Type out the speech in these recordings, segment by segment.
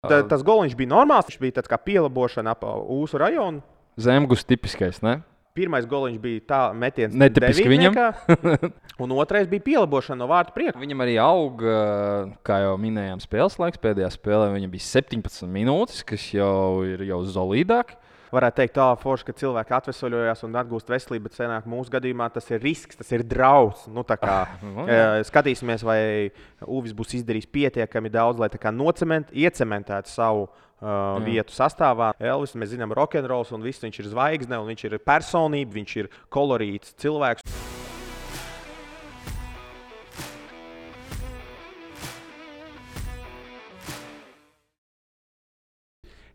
Tas goliņš bija normāls, viņš bija tāds kā pielabošana ap Ūsu rajonu. Zemgus tipiskais, ne? Pirmais goliņš bija tā metiens Netipiski viņam. Un otrais bija pielabošana no vārtu priekšu. Viņam arī auga, kā jau minējām, spēles laiks. Pēdējā spēlē viņam bija 17 minūtes, kas jau ir solidāk. Varētu teikt, forši, ka cilvēki atvesaļojās un atgūst veselību, bet senāk mūsu gadījumā tas ir risks, tas ir draudz. Nu, skatīsimies, vai Uvis būs izdarījis pietiekami daudz, lai iecementētu savu vietu sastāvā. Elvis, mēs zinām, rokenrols un viss, viņš ir zvaigzne, un viņš ir personība, viņš ir kolorīts cilvēks.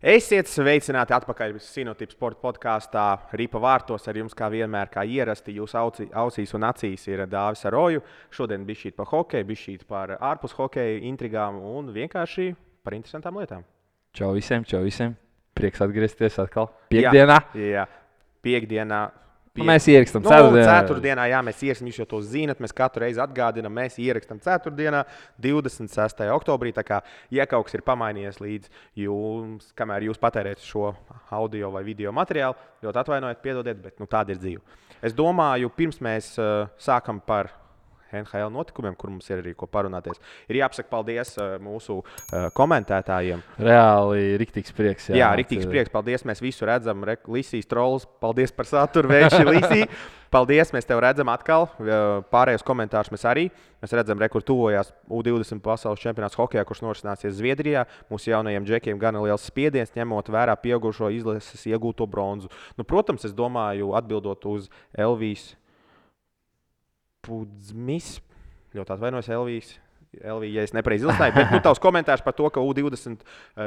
Esiet sveicināti atpakaļ Sinotips sporta podkāstā Ripa vārtos. Ar jums, kā vienmēr, kā ierasti, jūsu ausīs un acīs ir Dāvis Aroju. Šodien bišķīt par hokeju, bišķīt par ārpus hokeja intrigām un vienkārši par interesantām lietām. Čau visiem. Prieks atgriezties atkal piekdienā. Jā, piekdienā. Mēs ierakstam ceturtdienā, jā, mēs ierakstām, jūs jau to zinat, mēs katru reizi atgādinām, mēs ierakstam ceturtdienā, 26. oktobrī, tā kā, ja kaut kas ir pamainījies līdz jums, kamēr jūs patērēt šo audio vai video materiālu, ļoti atvainojiet, piedodiet, bet tāda ir dzīve. Es domāju, pirms mēs sākam par NHL notikumiem, kur mums ir arī ko parunāties, ir jāpasaka paldies mūsu komentētājiem. Reāli riktīgs prieks. Jā, riktīgs prieks. Paldies, mēs visu redzam. Lisijas trolls, paldies par saturu, vērši Lisija. Paldies, mēs tev redzam atkal. Pārējos komentārus mēs arī. Mēs redzam, kur tuvojās U20 pasaules čempionāts hokejā, kurš norisināsies Zviedrijā. Mūsu jaunajiem džekiem gana liels spiediens, ņemot vērā pieaugušo izlases iegūto bronzu. Protams, es domāju, atbildot uz Elvijas Pudzmis, ļoti atvainojos Elvija, ja es nepareizi ilustēju, bet tavs komentārs par to, ka U20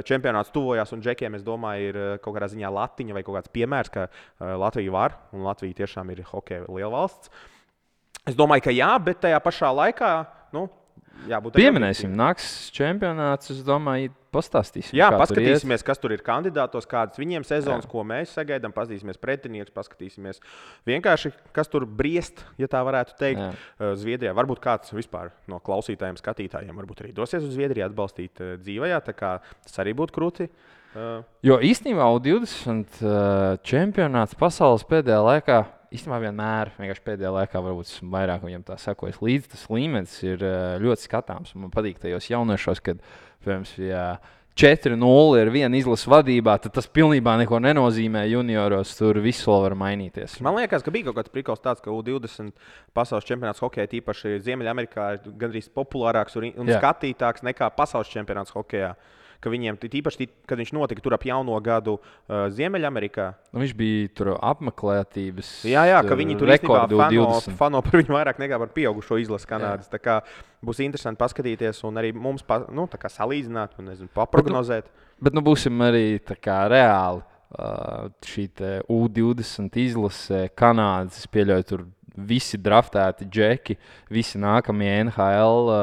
čempionāts tuvojās un džekiem, es domāju, ir kaut kādā ziņā latiņa vai kaut kāds piemērs, ka Latvija var, un Latvija tiešām ir hokeja liela valsts. Es domāju, ka jā, bet tajā pašā laikā, jābūt pieminēsim, nāks čempionāts, es domāju, pastāstīsim. Jā, paskatīsimies, kas tur ir kandidātos, kādas viņiem sezonas, ko mēs sagaidām, paskatīsimies pretinieks, paskatīsimies vienkārši, kas tur briest, ja tā varētu teikt, Zviedrijā. Varbūt kāds vispār no klausītājiem, skatītājiem varbūt arī dosies uz Zviedriju atbalstīt dzīvajā, tā kā tas arī būtu krūti. Jo īstenībā U20 čempionāts pasaules pēdējā laikā, īstenībā vienmēr, vienkārši pēdējā laikā varbūt vairāk viņam tā sakojas līdzi, tas līmenis ir ļoti skatāms. Man patīk tajos jauniešos, kad, piemēram, ja 4-0 ir viena izlases vadībā, tad tas pilnībā neko nenozīmē junioros, tur viss vēl var mainīties. Man liekas, ka bija kaut kāds prikals tāds, ka U20 pasaules čempionāts hokejā, tīpaši Ziemeļamerikā, ir gandrīz populārāks un skatītāks nekā pasaules čempionāts hokejā. Ka viņiem tīpaši, kad viņš notika tur ap jauno gadu Ziemeļamerikā. Viņš bija tur apmeklētības. Jā, ka viņi tur īstenībā fano par viņu vairāk nekā par pieaugušo izlasi Kanādas. Tā kā būs interesanti paskatīties un arī mums tā kā salīdzināt un paprognozēt. Bet būsim arī tā kā reāli šī U20 izlase Kanādas. Es pieļauju, tur visi draftēti džeki, visi nākamie NHL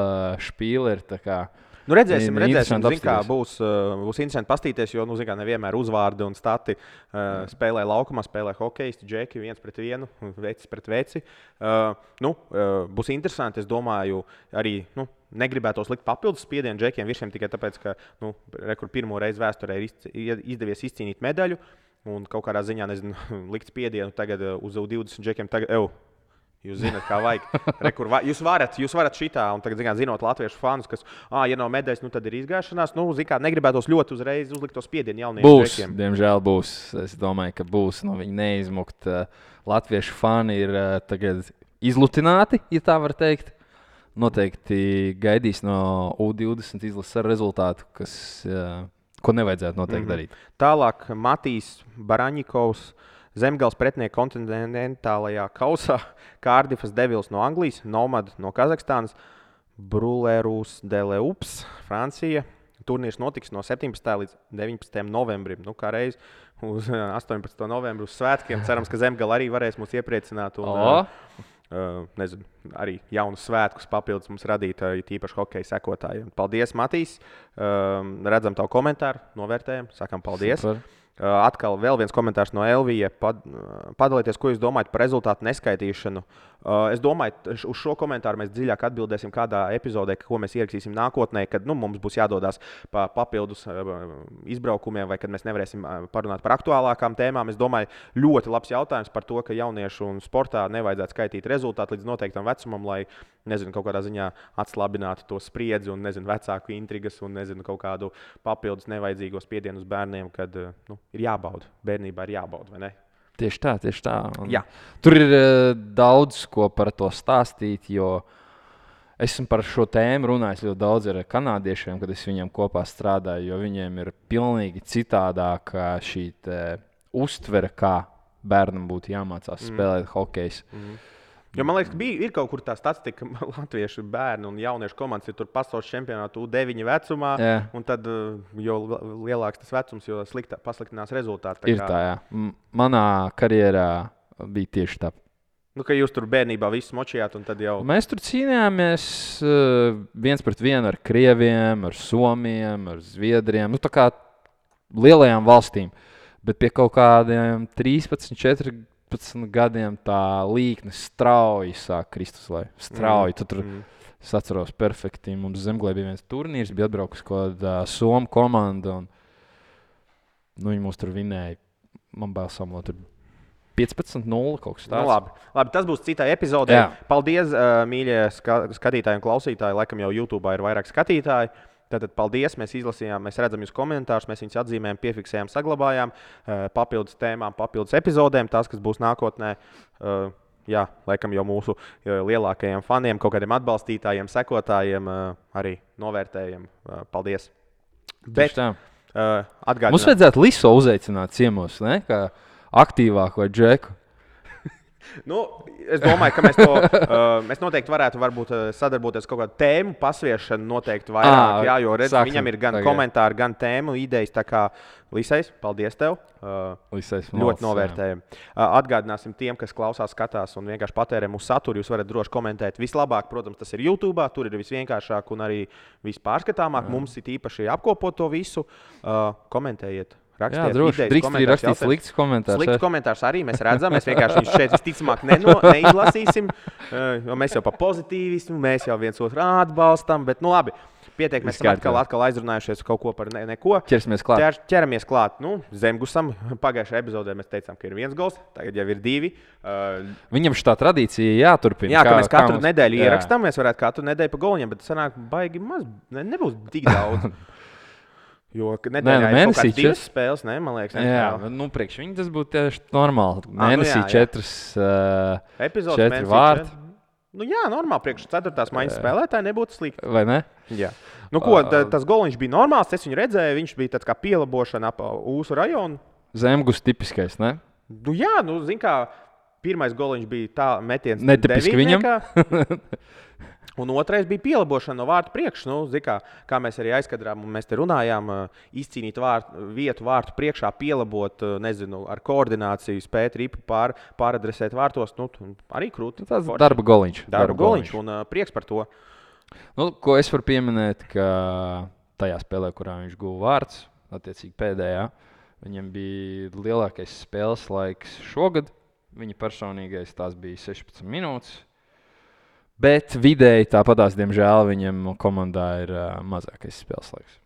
špīleri, tā kā. Redzēsim, kā būs interesanti pastīties, jo, nevienmēr uzvārdi un stati spēlē laukumā, spēlē hokejisti, džeki, viens pret vienu, vecis pret veci. Būs interesanti, es domāju, arī, negribētos likt papildus spiedienu džekiem virsiem tikai tāpēc, ka, kur pirmo reizi vēsturē ir izdevies izcīnīt medaļu un kaut kādā ziņā, likt spiedienu tagad uz 20 džekiem tagad, jūs zināt, kā vajag. Jūs varat šitā, un tagad, zinot latviešu fanus, kas, ja nav medaļas, tad ir izgāšanās. Negribētos ļoti uzreiz uzlikt to spiedienu jauniem džekiem. Diemžēl būs. Es domāju, ka būs. Viņi neizmukt. Latviešu fani ir tagad izlutināti, ja tā var teikt. Noteikti gaidīs no U20 izlases ar rezultātu, ko nevajadzētu noteikti darīt. Tālāk Matīs Baraņikovs. Zemgals pretinieka kontinentālajā kausā, Kārdifas Devils no Anglijas, Nomad no Kazahstānas, Brulērūs Deleups, Francija. Turnīrs notiks no 17. līdz 19. novembrim. Kā reiz uz 18. novembru uz svētkiem. Cerams, ka Zemgala arī varēs mūs iepriecināt un arī jaunus svētkus papildus mums radīt, tīpaši hokeja sekotājiem. Paldies, Matīs. Redzam tavu komentāru, novērtējam, sakam paldies. Super. Atkal vēl viens komentārs no Elvija. Padalieties, ko jūs domājat par rezultātu neskaitīšanu. Es domāju, uz šo komentāru mēs dziļāk atbildēsim kādā epizodē, ko mēs ierakstīsim nākotnē, kad mums būs jādodas pa papildus izbraukumiem, vai kad mēs nevarēsim parunāt par aktuālākām tēmām. Es domāju, ļoti labs jautājums par to, ka jauniešu un sportā nevajadzētu skaitīt rezultātu līdz noteiktam vecumam, lai kaut kādā ziņā atslābinātu to spriedzi un vecāku intrigas un kaut kādu papildus nevajadzīgo spiedienu uz bērniem, kad ir jābauda. Bērnībā ir jābauda, vai ne? Tieši tā. Tur ir daudz ko par to stāstīt, jo esmu par šo tēmu runājis ļoti daudz ar kanādiešiem, kad es viņiem kopā strādāju, jo viņiem ir pilnīgi citādāka šī uztvere, kā bērnam būtu jāmācās spēlēt hokeju. Jo man liekas, ka ir kaut kur tā statistika, ka latviešu bērnu un jauniešu komandas ir tur pasaules čempionātu U9 vecumā. Un tad, jo lielāks tas vecums, jo pasliktinās rezultāti. Ir tā, jā. Manā karjerā bija tieši tā. Ka jūs tur bērnībā visu močījāt un tad jau... Mēs tur cīnījāmies 1-1 ar krieviem, ar somiem, ar zviedriem. Tā kā lielajām valstīm. Bet pie kaut kādiem 13, 14 gadiem tā līkne strauji sāk krist uz leju. Strauji. Tur es atceros perfekti. Mums Zemglē bija viens turnīrs, bija atbraukusi kaut kāda Somu komanda. Viņi mūs tur vinēja. Man bail samot, tur 15-0 kaut kas tāds. Labi, tas būs citā epizodē. Jā. Paldies, mīļie skatītāji un klausītāji. Laikam jau YouTube ir vairāk skatītāji. Tātad paldies, mēs izlasījām, mēs redzam jūs komentārus, mēs viņus atzīmējām, piefiksējām, saglabājām, papildus tēmām, papildus epizodēm, tās, kas būs nākotnē, laikam jau mūsu lielākajiem faniem, kaut kādiem atbalstītājiem, sekotājiem, arī novērtējiem. Paldies! Bet, atgādināt. Mums vajadzētu Liso uzaicināt ciemos, ne? Kā aktīvāku vai Džeku. Es domāju, ka mēs noteikti varētu sadarboties kaut kādu tēmu pasviešanu noteikti vairāk, jo viņam ir gan komentāri, gan tēmu idejas. Tā kā Lisais, paldies tev. Ļoti novērtējam. Atgādināsim tiem, kas klausās, skatās un vienkārši patērē mūsu saturu. Jūs varat droši komentēt. Vislabāk, protams, tas ir YouTube, tur ir visvienkāršāk un arī vispārskatāmāk. Mums ir īpaši apkopot to visu. Komentējiet. Rakstiet, drīkst arī rakstīt slikts komentārs. Slikts komentārs arī mēs redzam. Mēs vienkārši viņus šeit visticamāk neizlasīsim, jo mēs jau pa pozitīvismu, mēs jau viens otru atbalstam. Bet, labi, pietiek, mēs esam atkal aizrunājušies kaut ko par neko. Ķeramies klāt. Zemgusam pagājušajā epizodē mēs teicām, ka ir 1 gols, tagad jau ir 2. Viņam šī tradīcija jāturpina. Jā, ka mēs katru nedēļu ierakstām, mēs varētu katru nedēļu pa goliņiem, bet sanāk baigi maz, nebūs tik daudz. Jo nedēļā ir kaut kādas 2 spēles, man liekas. Priekš viņi tas būtu tieši normāli. Mēnesī 4 vārti. Normāli. Priekš 4. maiņas spēlētāji nebūtu slikti. Vai ne? Jā. Tas goliņš bija normāls, es viņu redzēju, viņš bija tāds kā pielabošana ap Ūsu rajonu. Zemgus tipiskais, ne? Zin kā, pirmais goliņš bija tā metiens. Netipiski viņam. Un otrais bija pielabošana no vārtu priekš. Kā mēs arī aizkadrām, un mēs te runājām, izcīnīt vietu vārtu priekšā, pielabot, ar koordināciju, spēt ripu pāradresēt vārtos. Arī krūti. Tas darba goliņš. Darba goliņš un prieks par to. Ko es varu pieminēt, ka tajā spēlē, kurā viņš guva vārds, attiecīgi pēdējā, viņam bija lielākais spēles laiks šogad. Viņa personīgais tās bija 16 minūtes. Bet vidēji tāpatās, diemžēl, viņam komandā ir mazākais spēles laiks.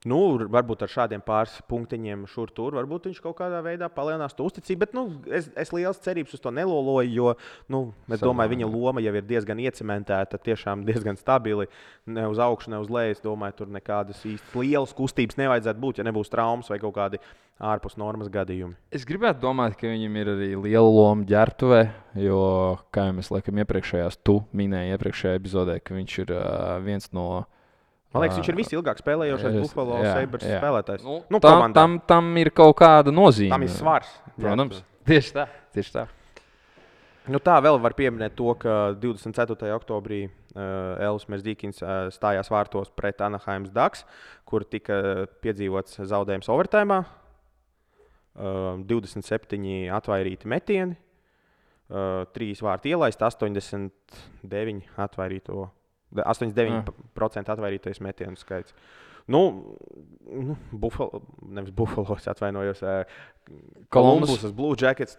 Varbūt ar šādiem pāris punktiņiem šur tur, varbūt viņš kaut kādā veidā palielinās to uzticību, bet es liels cerības uz to neloloju, jo es domāju, viņa loma jau ir diezgan iecementēta, tiešām diezgan stabili, ne uz augšu, ne uz leju. Es domāju, tur nekādas īsti lielas kustības nevajadzētu būt, ja nebūs traumas vai kaut kādi ārpus normas gadījumi. Es gribētu domāt, ka viņam ir arī liela loma ģērbtuvē, jo, kā jau mēs laikam minēji iepriekšējā epizodē, ka viņš ir viens no... Man liekas, viņš ir visilgāk spēlējošais Buffalo Sabres spēlētājs. Tam ir kaut kāda nozīme. Tam ir svars. Protams. Tieši tā. Tā vēl var pieminēt to, ka 24. oktobrī Elvis Merzikins stājās vārtos pret Anaheims Ducks, kur tika piedzīvots zaudējums overtājumā. 27 atvairīti metieni, 3 vārti ielaist, 89% atvairītais metienu skaits. Nevis Buffalo, es atvainojos. Columbus, Blue Jackets.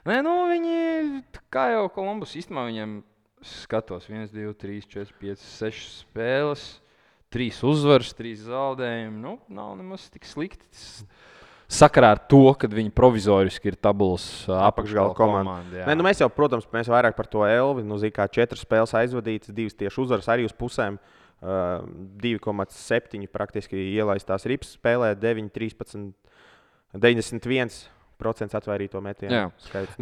Nē, viņi, kā jau Columbus, īstenībā viņam skatos 1, 2, 3, 4, 5, 6 spēles, 3 uzvaras, 3 zaudējumi. Nav nemaz tik slikti. Sakarā ar to, ka viņi provizoriski ir tabulas apakšgala komanda. Nē, mēs jau, protams, mēs vairāk par to Elvi. Kā 4 spēles aizvadītas, 2 tieši uzvaras arī uz pusēm. 2,7 praktiski ielaistās rips spēlē, 9, 13, 91% atvairīto metienu skaits.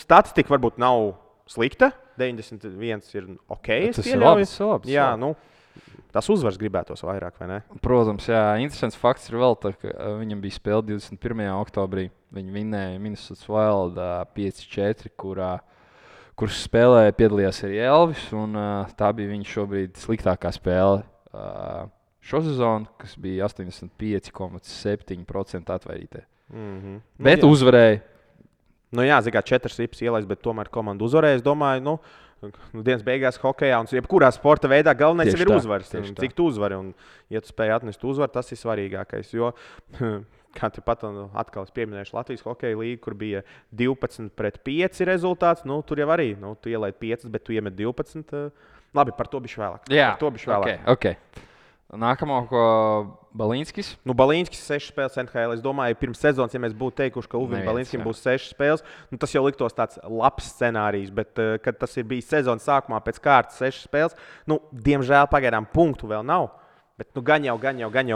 Statistika varbūt nav slikta, 91 ir ok. Tas ir labs. Jā, tas uzvaras gribētos vairāk, vai ne? Protams, jā. Interesants fakts ir vēl, ka viņam bija spēle 21. oktobrī. Viņi vinnēja Minnesota Wild 5-4, kurš spēlē piedalījās arī Elvis. Tā bija viņa šobrīd sliktākā spēle šo sezonu, kas bija 85,7% atvairītē. Bet uzvarēja. Zikā 4 rips ielaist, bet tomēr komanda uzvarēja. Es domāju, dienas beigās hokejā un jebkurā sporta veidā galvenais ir uzvaras. Cik tu uzvari un, ja tu spēj atnest uzvaru, tas ir svarīgākais. Jo, kā tepat atkal es pieminēšu Latvijas hokeja līgu, kur bija 12-5 rezultāts, tur jau arī, tu ielaid 5, bet tu iemet 12. Labi, par to bišķi vēlāk. Jā, okay. Nākamo, ko Balīnskis. Balīnskis 6 spēles NHL. Es domāju, pirms sezonas, ja mēs būtu teikuši, ka Ulvim Balīnskim būs 6 spēles, tas jau liktos tāds labs scenārijs. Bet, kad tas ir bijis sezonas sākumā pēc kārtas 6 spēles, diemžēl pagaidām punktu vēl nav. Bet gan jau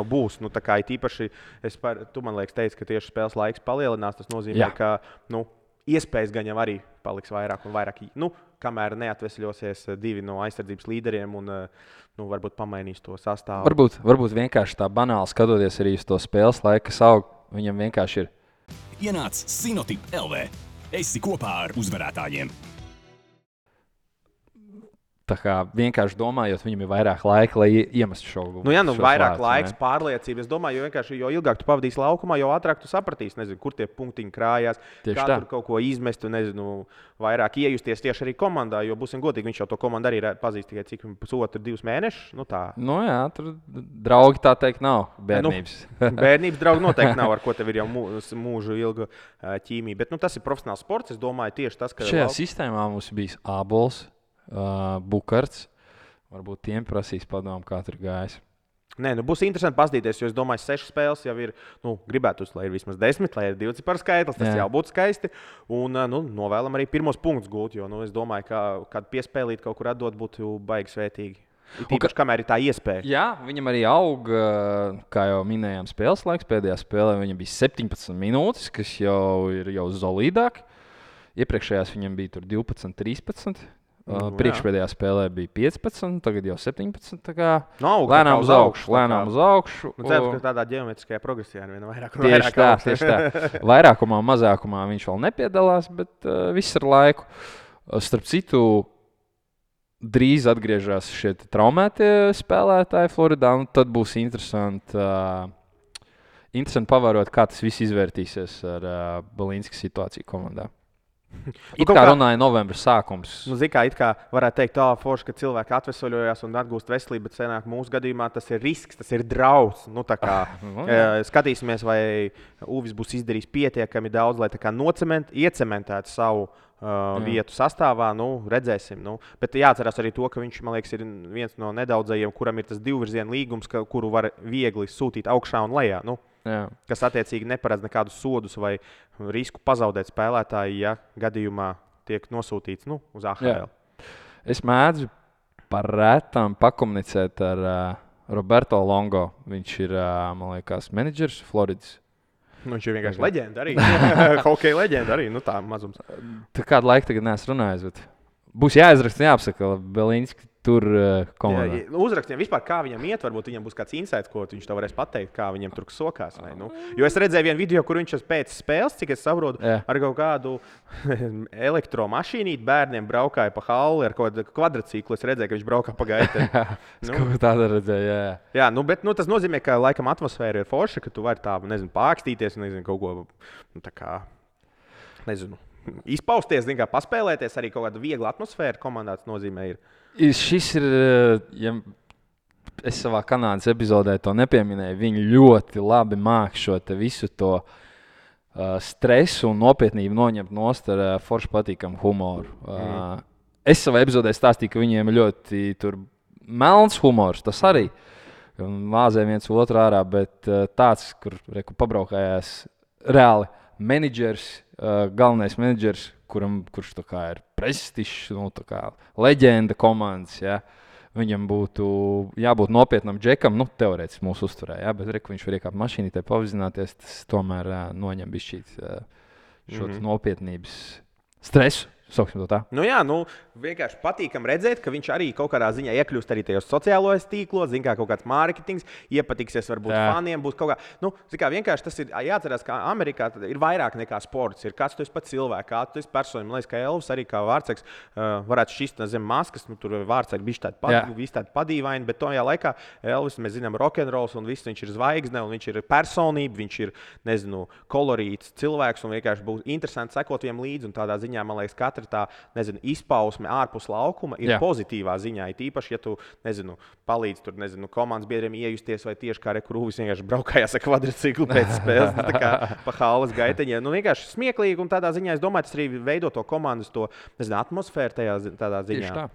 būs. Īpaši, tu man liekas, teici, ka tieši spēles laiks palielinās. Tas nozīmē, ka iespējas gan jau arī paliks vairāk un vairāk. Kamēr neatvesļosies 2 no aizsardzības līderiem un varbūt pamainīs to sastāvu. Varbūt vienkārši tā banāli skatoties arī uz to spēles laiku, kas aug, viņam vienkārši ir. Ienāc Sinotip LV. Esi kopā ar uzvarētājiem. Tā kā vienkārši domājot, viņam ir vairāk laika, lai iemestu šo gūstu. Vairāk laiks, pārliecība. Es domāju, jo ilgāk tu pavadīsi laukumā, jo ātrāk tu sapratīsi, kur tie punktiņi krājās, tur kaut ko izmest, vairāk iejusties tieši arī komandā. Jo, būsim godīgi, viņš jau to komandu arī pazīst tikai cik 1,5–2 mēnešus. Tur draugi tā teikt nav. Bērnības. Bērnības draugi noteikti nav, ar ko tev ir jau mūžu ilga ķīmija. Bet tas ir profesionāls sports. Es domāju, tieši tas, ka šajā sistēmā mums bijis Ābols. Bukarts. Varbūt tiem prasīs padomu, kā tur gājis. Būs interesanti paskatīties, jo es domāju, 6 spēles jau ir. Gribētu, lai ir vismaz 10, lai ir 2 par skaitlis. Tas jau būtu skaisti. Un novēlam arī pirmos punktus gūt, jo es domāju, ka kādu piespēlīt kaut kur atdot būtu baigi svētīgi. Tīpaši, kamēr ir tā iespēja. Jā, viņam arī aug, kā jau minējām, spēles laiks. Pēdējā spēlē viņam bija 17 minūtes, kas jau ir solīdāk. Iepriekšējās viņam bija 12, 13. Priekšpēdējā spēlē bija 15, tagad jau 17. Lēnām uz augšu. Cerams, ka tādā ģeometriskajā progresijā ir viena vairāk. Tieši tā. Vairākumā, mazākumā viņš vēl nepiedalās, bet viss ar laiku. Starp citu, drīz atgriežas šie traumētie spēlētāji Floridā, un tad būs interesanti pavērot, kā tas viss izvērtīsies ar Balīnska situāciju komandā. It kā runāja novembra sākums. It kā varētu teikt, forši, ka cilvēki atvesaļojās un atgūst veselību, bet senāk mūsu gadījumā tas ir risks, tas ir draudz. Skatīsimies, vai Uvis būs izdarījis pietiekami daudz, lai iecementētu savu vietu sastāvā. Redzēsim. Bet jāatcerās arī to, ka viņš, man liekas, ir viens no nedaudzajiem, kuram ir tas divvirziena līgums, kuru var viegli sūtīt augšā un lejā. Kas attiecīgi neparedz nekādus sodus vai risku pazaudēt spēlētāju, ja gadījumā tiek nosūtīts uz AHL. Es mēdzu par rētām pakomunicēt ar Roberto Longo. Viņš ir, man liekas, menedžers Floridas. Viņš ir vienkārši leģenda arī. Hokeja leģenda arī. Tā mazums. Tā kādu laiku tagad neesmu runājis, bet būs jāizraksta, jāapsaka Balīnski tur komandā. Uzrakstiem vispār, kā viņam iet, varbūt viņam būs kāds insights, ko viņš tev varēs pateikt, kā viņam tur sokās. Jo es redzēju vienu video, kur viņš pēc spēles, cik es saprotu, ar kaut kādu elektromašīnīti bērniem braukāja pa halli ar kaut kādu kvadrciklu. Es redzēju, ka viņš braukā pa gaitē. Tāda redzēja, jā. Bet tas nozīmē, ka laikam atmosfēra ir forša, ka tu vari tā, pākstīties, kaut ko, izpausties, paspēlēties, arī kaut kāda viegla atmosfēra komandā. Tas nozīmē, Šis ir, es savā Kanādas epizodē to nepieminēju. Viņi ļoti labi māk šo visu to stresu un nopietnību noņemt nost ar forši patīkamu humoru. Es savā epizodē stāstīju, ka viņiem ir ļoti melns humors, tas arī. Māzē viens otru ārā, bet tāds, kur pabraukājās reāli menedžers, galvenais menedžers, kurš tā kā ir prestižs, leģenda komandas, ja? Viņam būtu jābūt nopietnam džekam, teorētiski mūsu uzturē, ja? Bet viņš var iekāpt mašīnītē, pavizināties, tas tomēr noņem bišķīt šo nopietnības stresu. Sauksim to tā. Vienkārši patīkam redzēt, ka viņš arī kaut kādā ziņā iekļūst arī tajos sociālajos tīklos, kā kaut kāds mārketings, iepatiksies varbūt faniem, būs kaut kā. Vienkārši tas ir jāatcerās, ka Amerikā ir vairāk nekā sports. Ir kāds tu esi pats cilvēks, kāds tu esi persona. Man liekas, ka Elvis arī kā vārdsargs varētu šķist zem maskas, tur vārdsargi bišķi tādi padīvaini, bet tajā laikā Elvis, mēs zinām, rokenrols un viss, viņš ir zvaigzne un viņš ir personība, viņš ir, kolorīts cilvēks un vienkārši būs interesanti sekot viņam līdzi un tādā ziņā, man liekas, katra tā, izpausme ārpus laukuma ir pozitīvā ziņā. Ir īpaši, ja tu, palīdz tur, komandas biedriem iejusties vai tieši kā Krūvis vienkārši braukājās ar kvadriciklu pēc spēles, tā kā pa halles gaiteņiem. Vienkārši smieklīgi un tādā ziņā, es domāju, tas arī veido to komandas, atmosfēru tādā ziņā. Tieši tā.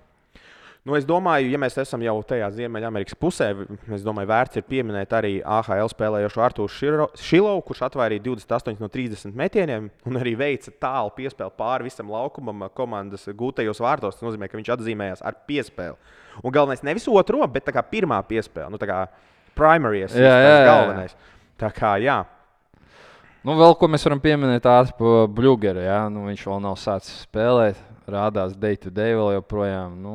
Es domāju, ja mēs esam jau tajā Ziemeļamerikas pusē, es domāju, vērts ir pieminēt arī AHL spēlējošo Artūru Šilovu, kurš atvairīja 28 no 30 metieniem un arī veica tālu piespēli pāri visam laukumam komandas gūtajos vārtos. Tas nozīmē, ka viņš atzīmējās ar piespēli. Un galvenais nevis otro, bet tā kā pirmā piespēle, tā kā primaries, galvenais. Tā kā, jā. Vēl ko mēs varam pieminēt par Bļugeru, ja? Viņš vēl nav sācis spēlēt, rādās day to day vēl joprojām.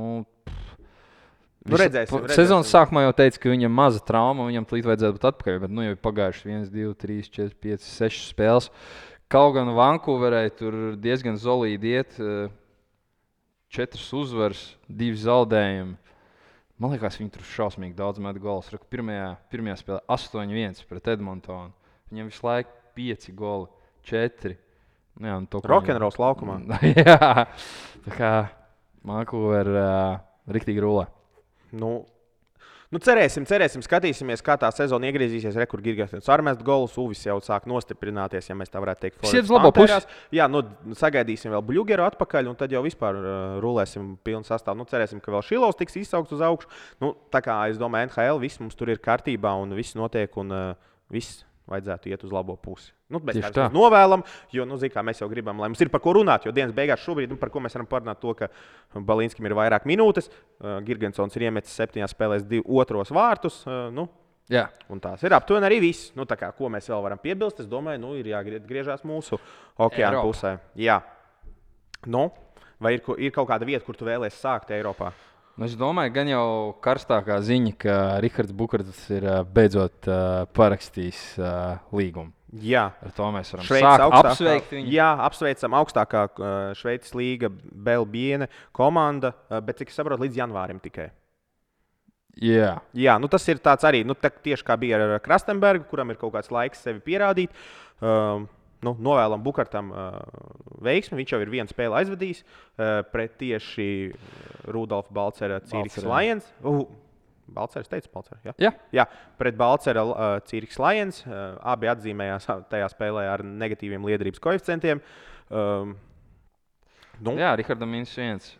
Redzēsim. Sezonas sākumā jau teica, ka viņam maza trauma, viņam tūlīt vajadzētu būt atpakaļ, bet jau ir pagājuši 1, 2, 3, 4, 5, 6 spēles. Kaut gan Vankūverē tur diezgan solīdi iet, 4 uzvaras, 2 zaudējumi. Man liekas, viņi tur šausmīgi daudz met golus. Pirmajā spēlē 8-1 pret Edmontonu. Viņam visu laiku 5 goli, 4. Rokenrols laukumā. Jā, tā kā Vankūver riktīgi rulē. Cerēsim, skatīsimies, kā tā sezona iegriezīsies. Kur Girgensons armest golus, Uvis jau sāk nostiprināties, ja mēs tā varētu teikt. Šis labo pusi. Jā, sagaidīsim vēl Bļugeru atpakaļ, un tad jau vispār rulēsim pilnu sastāvu. Cerēsim, ka vēl Šilovs tiks izsaukts uz augšu. Tā kā es domāju, NHL viss mums tur ir kārtībā un viss notiek, un viss vajadzētu iet uz labo pusi. Mēs tā novēlam, jo, kā mēs jau gribam, lai mums ir par ko runāt, jo dienas beigās šobrīd, par ko mēs varam parunāt to, ka Balinskim ir vairāk minūtes, Girgensons ir iemetis 7 spēlēs 2 otros vārtus, Jā. Un tās ir aptuveni arī viss. Ko mēs vēl varam piebilst, es domāju, ir jāgriežās mūsu okeāna pusē. Jā. Vai ir kaut kāda vieta, kur tu vēlies sākt Eiropā? Es domāju, gan jau karstākā ziņa, ka Rihards Bukarts ir beidzot parakstījis līgumu. Jā, ar to mēs varam sākt apsveikt viņu. Jā, apsveicam augstākā Šveices līga Belbiene komanda, bet cik es saprotu, līdz janvārim tikai. Jā, tas ir tāds arī, tieši kā bija ar Krastenbergu, kuram ir kaut kāds laiks sevi pierādīt. Novēlam Bukartam veiksmi. Viņš jau ir vienu spēli aizvadījis pret tieši Rudolfa Balcera Cīriks Lions. Balcers teica, Balcers, jā? Jā, pret Balcera Cīriks Lions. Abi atzīmējās tajā spēlē ar negatīviem liederības koeficientiem. Jā, Rihardam -1.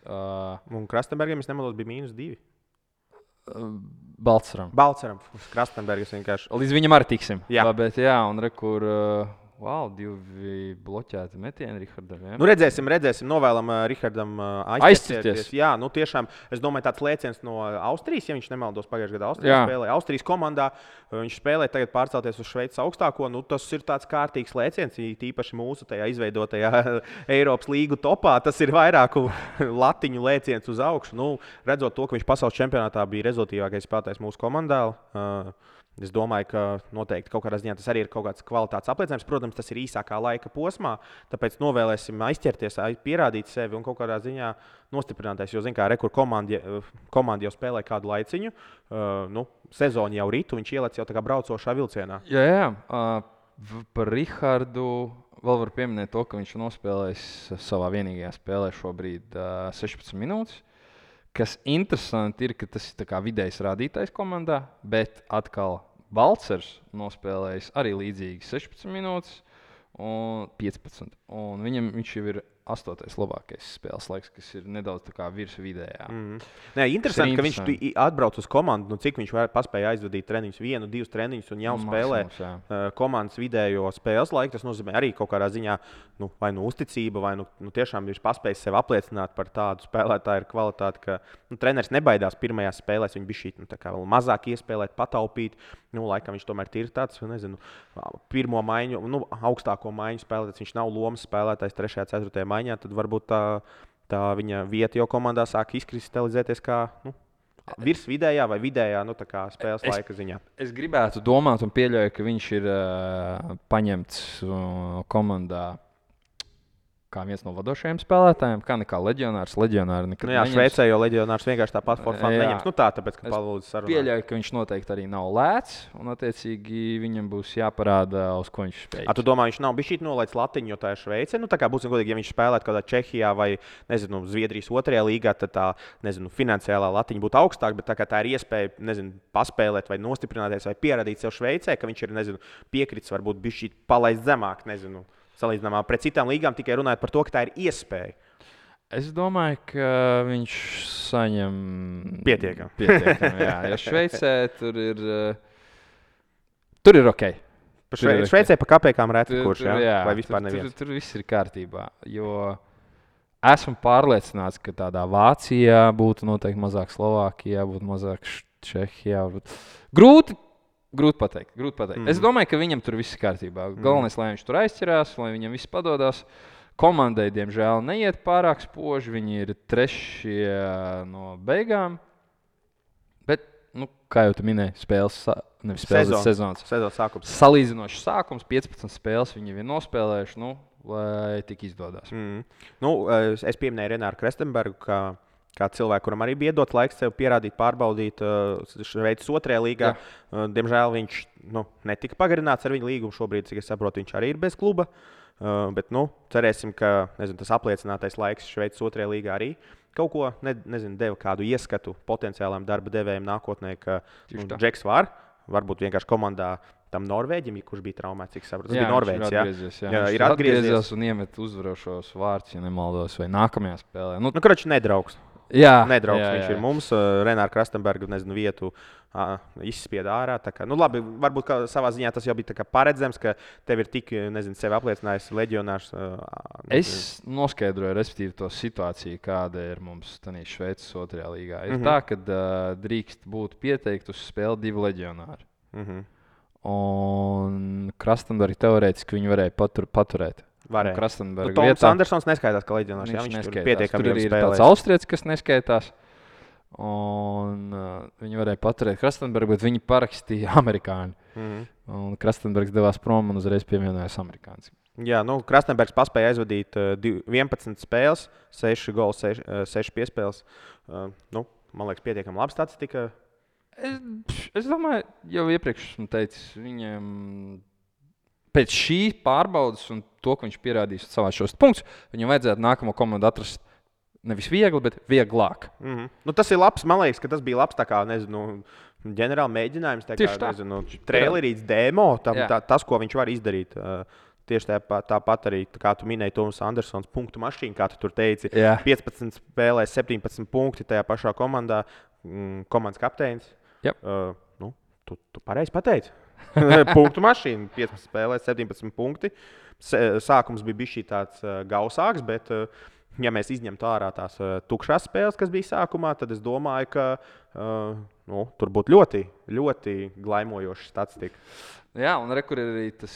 Un Krastenbergam, es nemaldos, bija -2. Balceram. Krastenbergas vienkārši. Līdz viņam arī tiksim. Jā. Bet jā, un rekur... 2 bloķēti metieni Rihardam. Ja? Redzēsim, novēlam Rihardam aizķerties. Jā, tiešām, es domāju, tāds lēciens no Austrijas, ja viņš nemaldos pagājušajā gadā Austrijas spēlē. Austrijas komandā viņš spēlē tagad pārcelties uz Šveices augstāko. Tas ir tāds kārtīgs lēciens, īpaši mūsu tajā izveidotajā Eiropas līgu topā. Tas ir vairāku latiņu lēciens uz augšu. Redzot to, ka viņš pasaules čempionātā bija rezultātīvākais spēlētājs mūsu komandā. Es domāju, ka noteikti kaut kādā ziņā tas arī ir kaut kāds kvalitātes apliecinājums. Protams, tas ir īsākā laika posmā, tāpēc novēlēsim aizķerties, pierādīt sevi un kaut kādā ziņā nostiprināties. Jo, rekur komanda jau spēlē kādu laiciņu, sezonu jau ritu, viņš ielec jau tā kā braucošā vilcienā. Jā. Par Rihardu vēl var pieminēt to, ka viņš nospēlējis savā vienīgajā spēlē šobrīd 16 minūtes. kas interesanti ir, ka tas ir tā kā vidējs rādītājs komandā, bet atkal Balcers nospēlējis arī līdzīgi 16 minūtes un 15. Un viņš jau ir 8. labākais spēles laiks, kas ir nedaudz virs vidējā. Nē, interesanti, ka viņš atbrauc uz komandu, cik viņš paspēja aizvadīt treniņus, 1, 2 treniņus un jau spēlē komandas vidējo spēles laiku. Tas nozīmē arī kaut kādā ziņā vai uzticība, vai tiešām viņš paspējis sev apliecināt par tādu spēlētāju kvalitāti, ka treneris nebaidās pirmajās spēlēs, viņš bija šī vēl mazāk iespēlēt, pataupīt. Laikam viņš tomēr ir tāds, nezinu, pirmo maiņu, augstāko maiņu spēlētājs. Viņš nav lomas spēlētājs 3. 4. maiņā, tad varbūt tā viņa vieta jau komandā sāk izkristalizēties kā virs vidējā vai vidējā spēles laika ziņā. Es gribētu domāt un pieļauju, ka viņš ir paņemts komandā kā viens no vadošajiem spēlētājiem, kā leģionārs. Leģionāri nekad neņems. Šveicē jau leģionārs vienkārši tāpat formā neņems. Tāpēc, ka palūdzu sarunāt. Pieļauju, ka viņš noteikti arī nav lēts, un attiecīgi viņam būs jāparāda, uz ko viņš spēj. Tu domā, viņš nav bijis nolaists latiņu, jo tā ir Šveice? Būsim godīgi, ja viņš spēlētu kādā Čehijā vai, Zviedrijas 2. līgā, tad tā, finansiālā latiņa būtu augstāka, bet tā ir iespēja, paspēlēt vai nostiprināties vai pierādīt sev Šveicē, ka viņš ir, piekritis varbūt bijis palaist zemāk, salīdzinājumā pret citām līgām, tikai runājot par to, ka tā ir iespēja. Es domāju, ka viņš saņem pietiekami. Jā, jo Šveicē tur ir ok. Šveicē pa kapekām reti kurš, vai vispār neviens. Tur viss ir kārtībā, jo esmu pārliecināts, ka tādā Vācijā būtu noteikti mazāk Slovākijā, būtu mazāk Čehijā. Grūti pateikt. Es domāju, ka viņam tur viss ir kārtībā. Galvenais, lai viņš tur aizķerās, lai viņam viss padodas. Komandai, diemžēl, neiet pārāk spoži. Viņi ir 3. no beigām. Bet, kā jau tu minēji, sezonas sākums. Salīdzinošs sākums, 15 spēles viņi ir nospēlējuši, lai tik izdodas. Es pieminēju Renāru Krestenbergu, kā cilvēku, kuram arī bija iedot laiks sev pierādīt, pārbaudīt Šveices 2. līgā. Diemžēl viņš netika pagarināts ar viņu līgumu. Šobrīd, cik es saprotu, viņš arī ir bez kluba. Bet cerēsim, ka tas apliecinātais laiks Šveices 2. līgā arī kaut ko deva kādu ieskatu potenciālām darba devējiem nākotnē, ka Džeks varbūt vienkārši komandā tam Norvēģim, kurš bija traumēts, cik saprotu. Tas bija Norvēģis. Ir atgriezies un iemet uzvarošos vārdus, ja nemaldos, vai nākamajā spēlē. Kroči nedraugs. Nedraugs viņš ir mums. Renāra Krastenberga vietu izspieda ārā. Labi, varbūt savā ziņā tas jau bija paredzams, ka tev ir tik, sevi apliecinājis leģionārs. Es noskaidroju, respektīvi, to situāciju, kāda ir mums Šveices 2. līgā. Ir tā, ka drīkst būt pieteikti uz spēli 2 leģionāri. Un Krastenberga teorētiski viņi varēja paturēt. Toms Andersons neskaitās, ka leģionārs. Viņš tur pietiekami tur ir tāds austrietis, kas neskaitās. Un viņi varēja paturēt Krastenbergu, bet viņi parakstīja amerikāņu. Un Krastenbergs devās prom un uzreiz pievienojās amerikānis. Jā, Krastenbergs paspēja aizvadīt 11 spēles, 6 gols, 6 piespēles. Man liekas, pietiekami labi statistika. Es domāju, jau iepriekš esmu teicis, viņam pēc šī pārbaudas un to, ka viņš pierādīs savā šos punktus, viņam vajadzētu nākamo komandu atrast nevis viegli, bet vieglāk. Tas ir labs, man liekas, ka tas bija labs ģenerāli mēģinājums, trailerīts demo, tas, ko viņš var izdarīt. Tieši tāpat arī, kā tu minēji, Toms Andersons punktu mašīna, kā tu tur teici. 15 spēlēs, 17 punkti tajā pašā komandā, komandas kapteinis. Tu pareizi pateici. Punktu mašīna, 15 spēlēs, 17 punkti. Sākums bija bijis tāds gausāks, bet, ja mēs izņemtu ārā tās tukšās spēles, kas bija sākumā, tad es domāju, ka tur būtu ļoti, ļoti glaimojoša statistika. Jā, un kur ir arī tas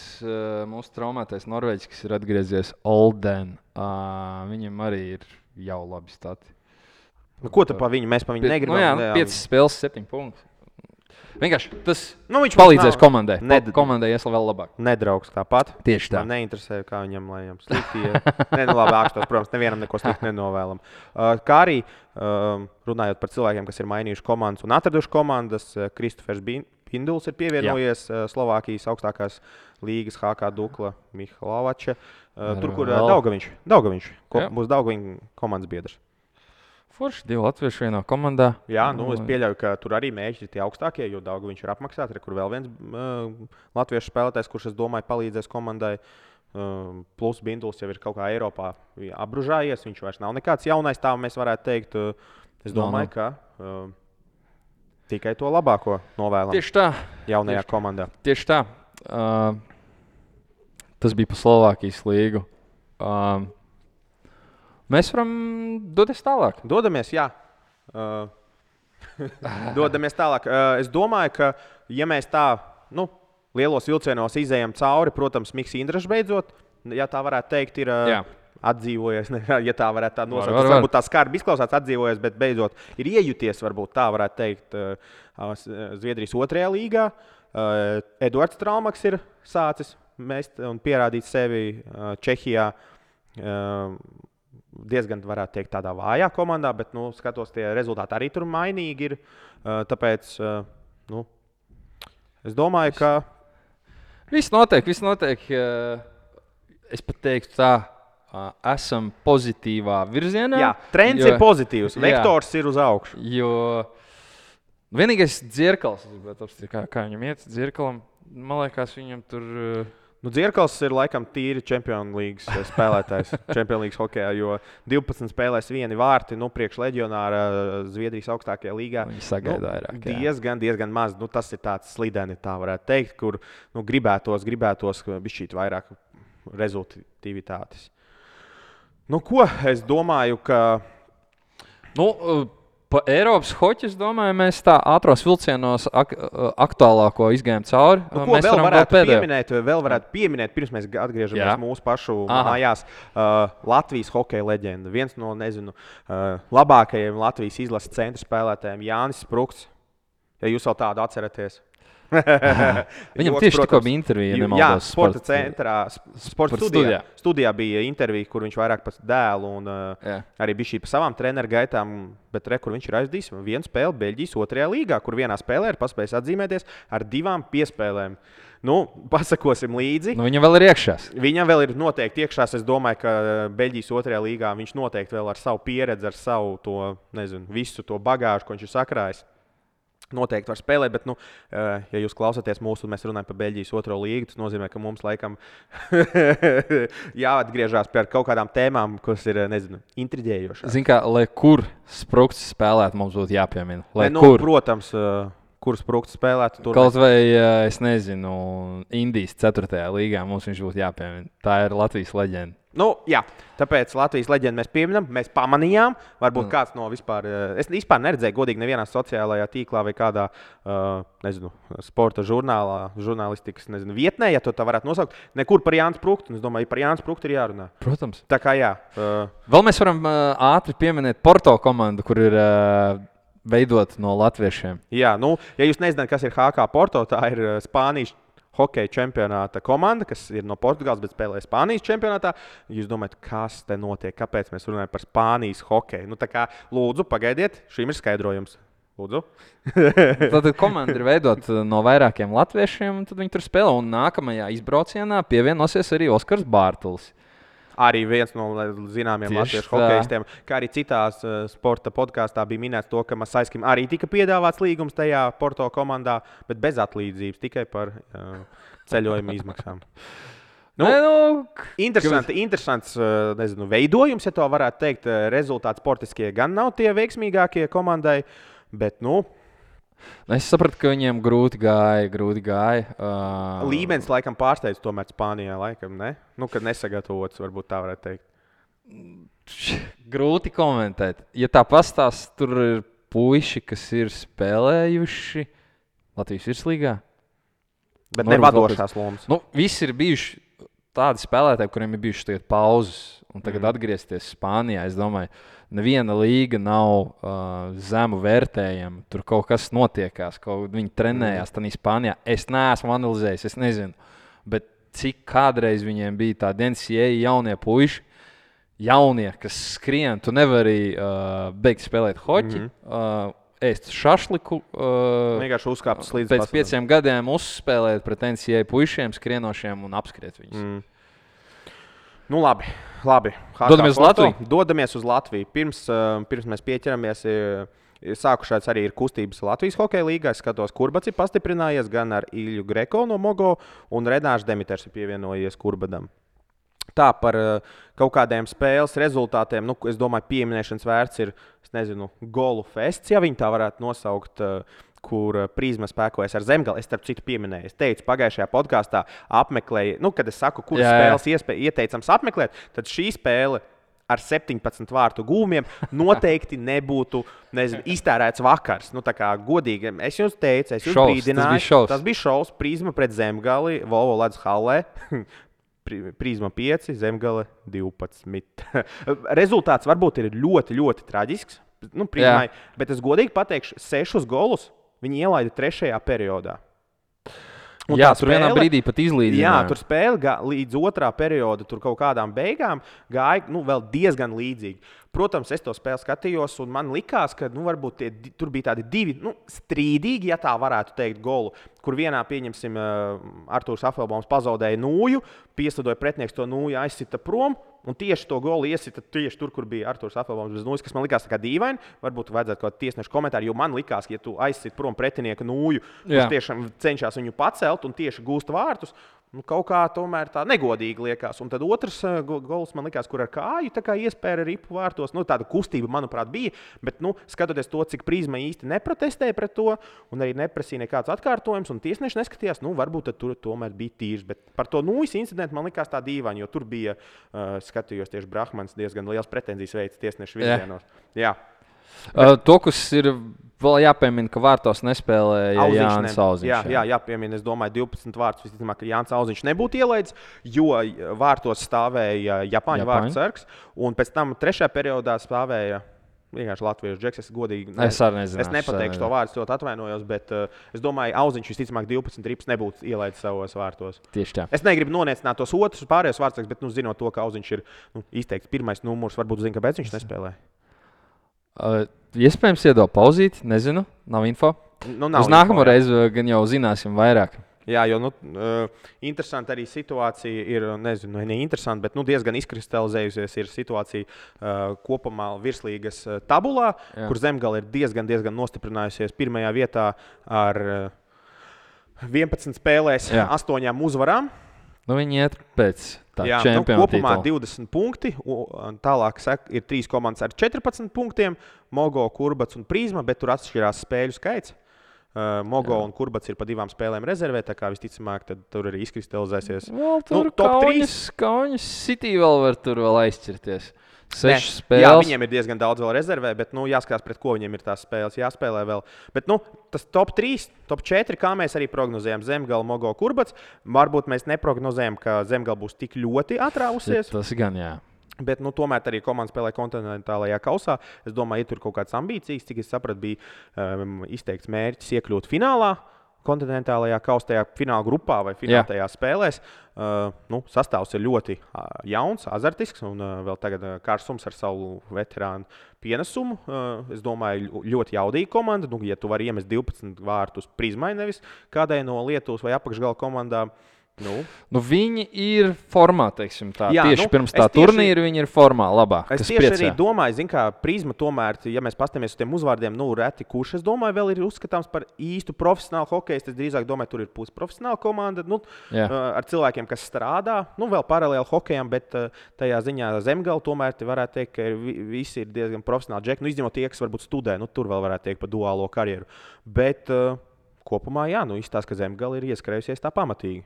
mūsu traumētais Norvēģis, kas ir atgriezies Olden. Viņam arī ir jau labi stati. Ko tu pa viņu? Mēs pa viņu negribam. 5 spēles, 7 punkti. Vienkārši tas palīdzēs komandai. Komandai ies vēl labāk. Nedraugs tāpat. Tieši tā. Man neinteresē, kā viņam, lai viņam slikti iet. Labi, ākstos, protams, nevienam neko slikti nenovēlam. Kā arī runājot par cilvēkiem, kas ir mainījuši komandas un atraduši komandas, Kristofers Pinduls ir pievienojies Slovākijas augstākās līgas HK Dukla Mihalovača. Tur, kur Daugaviņš. Būs Daugaviņš komandas biedrs. Forši 2 latvieši vienā komandā. Jā, es pieļauju, ka tur arī mēģi ir tie augstākie, jo daudz viņš ir apmaksāts. Kur vēl viens latviešu spēlētājs, kurš, es domāju, palīdzēs komandai. Plus Binduls jau ir kaut kā Eiropā apbružājies. Viņš vairs nav nekāds jaunais, tā mēs varētu teikt. Es domāju, ka tikai to labāko novēlam. Tieši tā. Jaunajā komandā. Tieši tā. Tas bija pa Slovākijas līgu. Mēs varam doties tālāk. Dodamies, jā. Dodamies tālāk. Es domāju, ka, ja mēs tā lielos vilcienos izējām cauri, protams, Mikls Indrašs beidzot, ja tā varētu teikt, ir atdzīvojies. Ja tā varētu tā nosaukt, tas varbūt tā skarbi izklausās atdzīvojies, bet beidzot ir iejuties, varbūt tā varētu teikt, Zviedrijas 2. līgā. Eduards Traumaks ir sācis mest un pierādīt sevi Čehijā. Diezgan, varētu teikt, tādā vājā komandā, bet, skatos, tie rezultāti arī tur mainīgi ir. Tāpēc, es domāju, ka... Viss notiek. Es pat teiktu tā, esam pozitīvā virzienā. Jā, trends ir pozitīvs, vektors ir uz augšu. Jo vienīgais Dzirkals, kā viņam iet Dzirkalam, man liekas, viņam tur... Dzirkals ir laikam tīri Champions League spēlētājs, Champions League hokejā, jo 12 spēlēs 1 vārti, priekš leģionāra Zviedrijas augstākajā līgā. Viņi sagaida vairāk. Diezgan maz. Tas ir tāds slideni, tā varētu teikt, kur gribētos bišķīt vairāk rezultātivitātes. Ko es domāju, ka... Pa Eiropas hoķi, es domāju, mēs tā ātros vilcienos aktuālāko izgājām cauri. Ko vēl varētu pieminēt, pirms mēs atgriežamies mūsu pašu mājās. Latvijas hokeja leģenda. Viens no, labākajiem Latvijas izlases centra spēlētājiem Jānis Sprukts. Ja jūs vēl tādu atceraties. Viņam tieši tikko bija intervija, ja nemaldos. Jā, sporta centrā, sporta studijā bija intervija, kur viņš vairāk par dēlu un arī bija šī pa savām treneru gaitām, bet kur viņš ir aizdījis vienu spēli Beļģijas 2. līgā, kur vienā spēlē ir paspējis atzīmēties ar 2 piespēlēm. Pasakosim līdzi. Viņam vēl ir iekšās. Viņam vēl ir noteikti iekšās. Es domāju, ka Beļģijas 2. līgā viņš noteikti vēl ar savu pieredzi, ar savu to, visu to bagāžu, ko viņš ir sakrājis. Noteikti var spēlēt, bet, ja jūs klausāties mūsu, mēs runājam par Beļģijas 2. līgu, tas nozīmē, ka mums laikam jāatgriežās pie kaut kādām tēmām, kas ir, intriģējošas. Zini kā, lai kur Sprukts spēlētu, mums būtu jāpiemina. Protams, kur Sprukts spēlētu. Kaut vai, es nezinu, Indijas 4. līgā mums viņš būtu jāpiemina. Tā ir Latvijas leģenda. Jā, tāpēc Latvijas leģendu mēs pieminam, mēs pamanījām. Varbūt kāds no vispār, es vispār neredzēju godīgi nevienā sociālajā tīklā vai kādā, sporta žurnālistikas, vietnē, ja to tā varētu nosaukt. Nekur par Jānis Spruktu, un es domāju, par Jānis Spruktu ir jārunā. Protams. Tā kā jā. Vēl mēs varam ātri pieminēt Porto komandu, kur ir veidot no latviešiem. Jā, ja jūs nezināt, kas ir HK Porto, tā ir Spānijas hokeja čempionāta komanda, kas ir no Portugāles, bet spēlē Spānijas čempionātā. Jūs domājat, kas te notiek? Kāpēc mēs runājam par Spānijas hokeju? Tā kā, lūdzu, pagaidiet, šim ir skaidrojums. Lūdzu. Tad komanda ir veidota no vairākiem latviešiem, un tad viņi tur spēlē. Un nākamajā izbraucienā pievienosies arī Oskars Bārtulis. Arī viens no zināmiem latviešu hokeistiem, kā arī citās sporta podkāstā bija minēts to, ka Masaiskim arī tika piedāvāts līgums tajā Porto komandā, bet bez atlīdzības, tikai par ceļojuma izmaksām. Interesants veidojums, ja to varētu teikt. Rezultāti sportiskie gan nav tie veiksmīgākie komandai, bet es sapratu, ka viņiem grūti gāja. Līmenis laikam pārsteidz tomēr Spānijā, laikam, ne? Kad nesagatavots, varbūt tā varētu teikt. Grūti komentēt. Ja tā pastāst, tur ir puiši, kas ir spēlējuši Latvijas virslīgā. Bet nevadošās lomas. Visi ir bijuši tādi spēlētāji, kuriem ir bijušas tagad pauzes, un tagad atgriezties Spānijā, es domāju, neviena līga nav zemu vērtējama. Tur kaut kas notiekās, viņi trenējās tādā Spānijā. Es neesmu analizējis, es nezinu. Bet cik kādreiz viņiem bija tādi NCAA jaunie puiši, kas skrien, tu nevari beigt spēlēt hoķi, ēst šašliku. Vienkārši uzkāptas līdz pēc 5 gadiem uzspēlēt pret NCAA puišiem, skrienošiem un apskriet viņus. Nu, labi. Dodamies uz Latviju. Pirms mēs pieķeramies, sākušās arī ir kustības Latvijas hokeja līgā. Es skatos, Kurbats ir pastiprinājies gan ar Ilju Greko no Mogo, un Renārs Demiters ir pievienojies Kurbadam. Tā par kaut kādiem spēles rezultātiem, nu, es domāju, pieminēšanas vērts ir, golu fests, ja viņi tā varētu nosaukt, kur Prizma spēkojas ar Zemgali. Es starp citu pieminēju. Es teicu, pagājušajā podkāstā apmeklēju, kad es saku, kuras spēles ieteicams apmeklēt, tad šī spēle ar 17 vārtu gūmiem noteikti nebūtu iztērēts vakars. Nu, tā kā godīgi, es jums teicu, es jums brīdināju. Tas bija šovs, Prizma pret Zemgali, Volvo Ledus hallē. Prizma 5, Zemgale 12. Rezultāts varbūt ir ļoti, ļoti traģisks. Nu, Prizmai, bet es godīgi pateikšu, 6 golus viņi ielaida 3. periodā. Un tur vienā brīdī pat izlīdzināja. Jā, tur spēle līdz 2. perioda, tur kaut kādām beigām gāja vēl diezgan līdzīgi. Protams, es to spēli skatījos, un man likās, ka varbūt tur bija tādi 2 strīdīgi, ja tā varētu teikt, golu, kur vienā, pieņemsim, Artūrs Afelbaums pazaudēja nūju, pieslidoja pretinieks to nūju, aizsita prom, un tieši to golu iesita tieši tur, kur bija Artūrs Afelbaums bez nūjas, kas man likās tā kā dīvaini. Varbūt vajadzētu kaut kādu tiesnešu komentāru, jo man likās, ka, ja tu aizsit prom pretinieka nūju, kurš tiešām cenšas viņu pacelt un tieši gūst vārtus, kaut kā tomēr tā negodīgi liekas. Un tad otrs gols man likās, kur ar kāju tā kā iespēja ripu vārtos. Nu, tāda kustība, manuprāt, bija. Bet, skatoties to, cik Prizma īsti neprotestēja pret to un arī neprasīja nekāds atkārtojums, un tiesneši neskatījās, varbūt tur tomēr bija tīrs. Bet par to nūjas incidentu man likās tā dīvaini, jo tur bija, skatījos tieši Brahmans, diezgan liels pretenzijas veids tiesnešu virzienos. Jā. To, kas ir vēl jāpiemina, ka vārtos nespēlēja Jānis Auziņš. Jā, jāpiemina, es domāju, 12 vārtus visticamāk, ka Jānis Auziņš nebūtu ielaidis, jo vārtos stāvēja Japāņu vārtu sargs, un pēc tam 3. periodā stāvēja vienkārši latviešu džeks. Es godīgi es nepateikšu to vārdu, ļoti atvainojos, bet es domāju, Auziņš visticamāk 12 rips nebūtu ielaidis savos vārtos. Tieši tā. Es negribu noniecināt tos otrus pārējos vārtus, bet zinot to, ka Auziņš ir izteikts pirmais numurs, varbūt zina, kāpēc viņš nespēlē. Iespējams, iedod pauzīt, nezinu, nav info. Uz nākamo reizi gan jau zināsim vairāk. Jā, jo interesanti arī situācija ir, neinteresanti, bet diezgan izkristalizējusies ir situācija kopumā virslīgas tabulā, kur Zemgale ir diezgan nostiprinājusies pirmajā vietā ar 11 spēlēs, 8 uzvarām. Viņi iet pēc tā čempiona kopumā titula. 20 punkti, un tālāk ir 3 komandas ar 14 punktiem, Mogo, Kurbats un Prizma, bet tur atšķirās spēļu skaits. Mogo un Kurbats ir pa 2 spēlēm rezervē, tā kā visticamāk, tad tur arī izkristalizēsies. Tur Kaunis City vēl var aizķirties. 6 spēles. Jā, viņiem ir diezgan daudz vēl rezervē, bet jāskatās, pret ko viņiem ir tās spēles jāspēlē vēl. Bet tas top 3, top 4, kā mēs arī prognozējam, Zemgale, Mogo, Kurbats. Varbūt mēs neprognozējam, ka Zemgale būs tik ļoti atrāvusies. Tas gan, jā. Bet tomēr arī komanda spēlē kontinentālajā kausā. Es domāju, ja tur kaut kādas ambīcijas, cik es sapratu, bija izteikts mērķis iekļūt finālā. Kontinentālajā kaustajā fināla grupā vai finālajās spēlēs. Sastāvs ir ļoti jauns, azartisks un vēl tagad Kārsums ar savu veterānu pienesumu. Es domāju, ļoti jaudīga komanda. Ja tu vari iemest 12 vārtus Prizmai, nevis kādai no Lietuvas vai apakšgala komandām. Viņi ir formā, teiksim tā. Jā, tieši pirms tā turnīra viņi ir formā labāk. Es tieši arī domāju, kā Prizma tomēr, ja mēs paskatāmies uz tiem uzvārdiem, reti kurš, es domāju, vēl ir uzskatāms par īstu profesionālu hokeju. Es drīzāk domāju, tur ir pusprofesionāla komanda, ar cilvēkiem, kas strādā, vēl paralēli hokejam, bet tajā ziņā Zemgale tomēr varētu teikt, ka visi ir diezgan profesionāli džeki. Izņemot tie, kas varbūt studē, tur vēl varētu teikt par duālo karjeru. Bet kopumā, izstāsta, ka Zemgale ir ieskrējusies tā pamatīgi.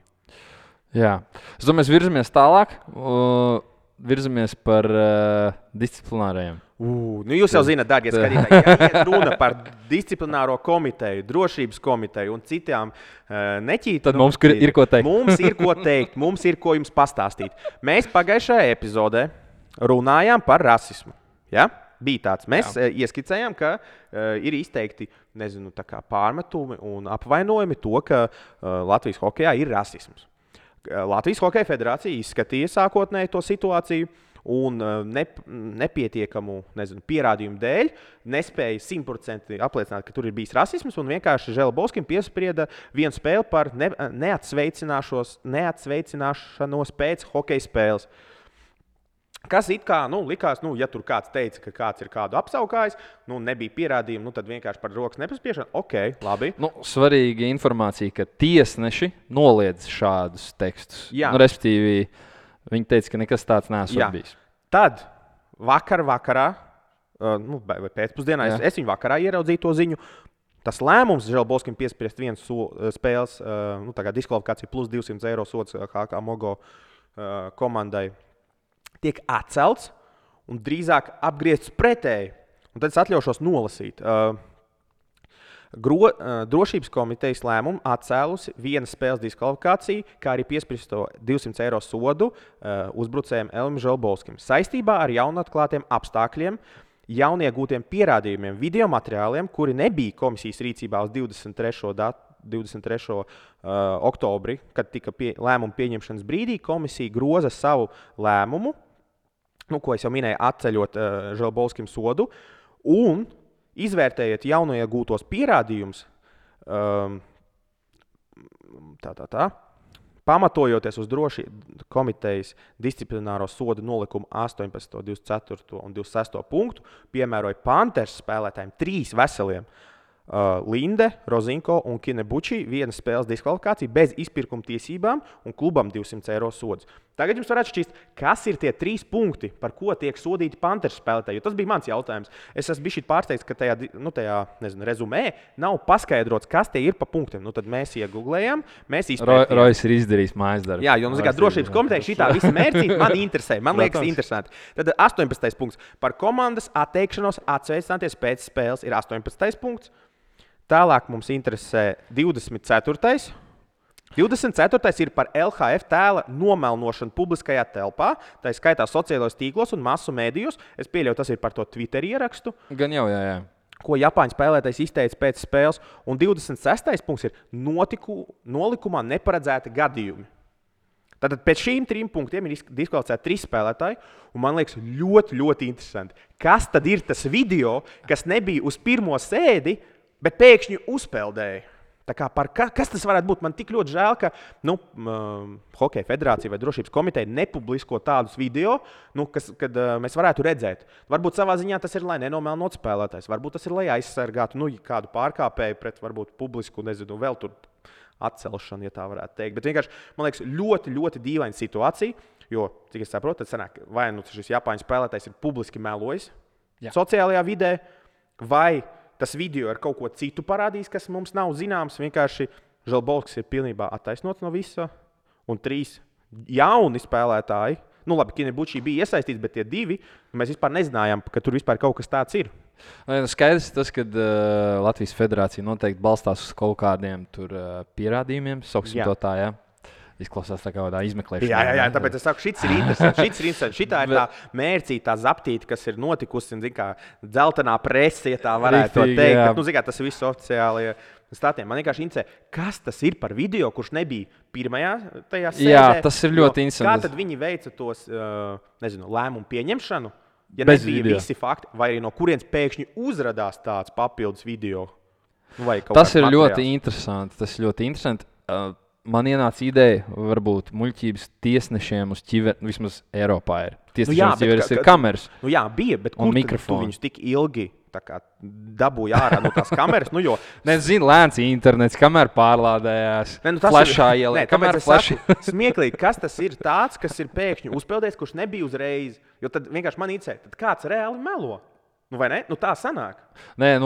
Jā, es domāju, mēs virzamies tālāk, virzamies par disciplinārajiem. Jūs jau zināt, dārgie skatītāji, ja iet runa par disciplināro komiteju, drošības komiteju un citām neķītām. Tad mums ir ko teikt. Mums ir ko teikt, mums ir ko jums pastāstīt. Mēs pagājušajā epizodē runājām par rasismu. Ja? Bija tāds. Mēs ieskicējām, ka ir izteikti pārmetumi un apvainojumi to, ka Latvijas hokejā ir rasisms. Latvijas Hokeja federācija izskatīja sākotnēji to situāciju un nepietiekamu pierādījumu dēļ nespēja 100% apliecināt, ka tur ir bijis rasisms, un vienkārši Želbovskim piesprieda vienu spēli par neatsveicināšanos pēc hokeja spēles. Kas it kā likās, ja tur kāds teica, ka kāds ir kādu apsaukājis, nebija pierādījumi, tad vienkārši par rokas nepaspiešanu. Ok, labi. Svarīga informācija, ka tiesneši noliedz šādus tekstus. Respektīvi, viņi teica, ka nekas tāds nesot bijis. Tad vakarā, vai pēcpusdienā, es viņu vakarā ieraudzīju to ziņu. Tas lēmums Želbolskim piespriest viens spēles diskvalifikācija plus 200 eiro sods HK Mogo komandai tiek atcelts un drīzāk apgriezts pretēji. Un tad es atļaušos nolasīt. Drošības komitejas lēmumu atcēlusi vienas spēles diskvalifikāciju, kā arī piespriesto 200 eiro sodu uzbrucējiem Elvim Želbolskim saistībā ar jaunatklātiem apstākļiem, jauniegūtiem pierādījumiem, video materiāliem, kuri nebija komisijas rīcībā uz 23. Oktobri, kad tika lēmuma pieņemšanas brīdī, komisija groza savu lēmumu, ko es jau minēju, atceļot Želbolskim sodu, un izvērtējiet jauniegūtos pierādījumus, pamatojoties uz drošības komitejas disciplināro sodu nolikumu 18, 24 un 26 punktu, piemēroja Panthers spēlētājiem 3 veseliem Linde, Rozinko un Kinebuči vienas spēles diskvalifikācija bez izpirkuma tiesībām un klubam 200 eiro sods. Tagad jums varētu šķist, kas ir tie 3 punkti, par ko tiek sodīti Panthers spēlētāji, jo tas bija mans jautājums. Es esmu bijis pārsteigts, ka tajā rezumē nav paskaidrots, kas tie ir pa punktiem. Tad mēs iegooglējām, mēs izpētījām. Rojas ir izdarījis mājas darbu. Jā, jo drošības komiteja šitā visa mērķīte man interesē, man liekas interesanti. Tad 18. punkts par komandas atteikšanos atsveicināties pēc spēles ir 18. punkts. Tālāk mums interesē 24. 24. ir par LHF tēla nomelnošanu publiskajā telpā, tā ir skaitā sociālajos tīklos un masu mēdījos. Es pieļauju, tas ir par to Twitter ierakstu. Gan jau, jā. Ko Japāņu spēlētājs izteica pēc spēles. Un 26. punkts ir nolikumā neparedzēti gadījumi. Tātad pēc šīm 3 punktiem ir diskvalificēti 3 spēlētāji, un man liekas ļoti, ļoti interesanti. Kas tad ir tas video, kas nebija uz pirmo sēdi, bet pēkšņi uzpeldēja? Kas tas varētu būt? Man tik ļoti žēl, ka Hokeja federācija vai drošības komiteja nepublisko tādus video, kad mēs varētu redzēt. Varbūt savā ziņā tas ir, lai nenomelnot spēlētājs. Varbūt tas ir, lai aizsargātu kādu pārkāpēju pret varbūt publisku, vēl tur atcelšanu, ja tā varētu teikt. Bet vienkārši, man liekas, ļoti, ļoti dīvaina situācija, jo, cik es saprotu, tad sanāk, vai šis Japāņu spēlētājs ir publiski melojis sociālajā vidē, vai tas video ar kaut ko citu parādīs, kas mums nav zināms. Vienkārši Želbolskis ir pilnībā attaisnots no visa. Un 3 jauni spēlētāji, labi, Kinebuči bija iesaistīts, bet tie 2, mēs vispār nezinājām, ka tur vispār kaut kas tāds ir. Skaidrs tas, ka Latvijas federācija noteikti balstās uz kaut kādiem pierādījumiem, sauksim to tā, jā. Izklausās tā kā tādā izmeklēšanā. Jā, tāpēc es saku, šis ir interesants. Šitā ir tā mērcīta, tā zaptīta, kas ir notikusi, dzeltenā prese, ja tā varētu teikt. Bet, tas ir viss oficiāli statiem. Man vienkārši interesē, kas tas ir par video, kurš nebija pirmajā tajā sēdē. Jā, tas ir ļoti interesanti. Kā tad viņi veica tos, lēmumu pieņemšanu, ja nebija visi fakti, vai arī no kurienes pēkšņi uzradās tāds papildus video? Tas ir ļoti interesanti. Man ienāca ideja, varbūt muļķības tiesnešiem uz ķiveri, vismaz Eiropā ir. Tiesnešiem uz ķiveres ir kameras. Bija, bet kur tu viņus tik ilgi dabūja ārā no tās kameras? Nezinu, lēns internets, kamēr pārlādējās, flešā ielē. Smieklīgi, kas tas ir tāds, kas ir pēkšņi uzpeldējis, kurš nebija uzreiz? Jo tad vienkārši man interesē, tad kāds reāli melo? Vai ne? Tā sanāk. Nē,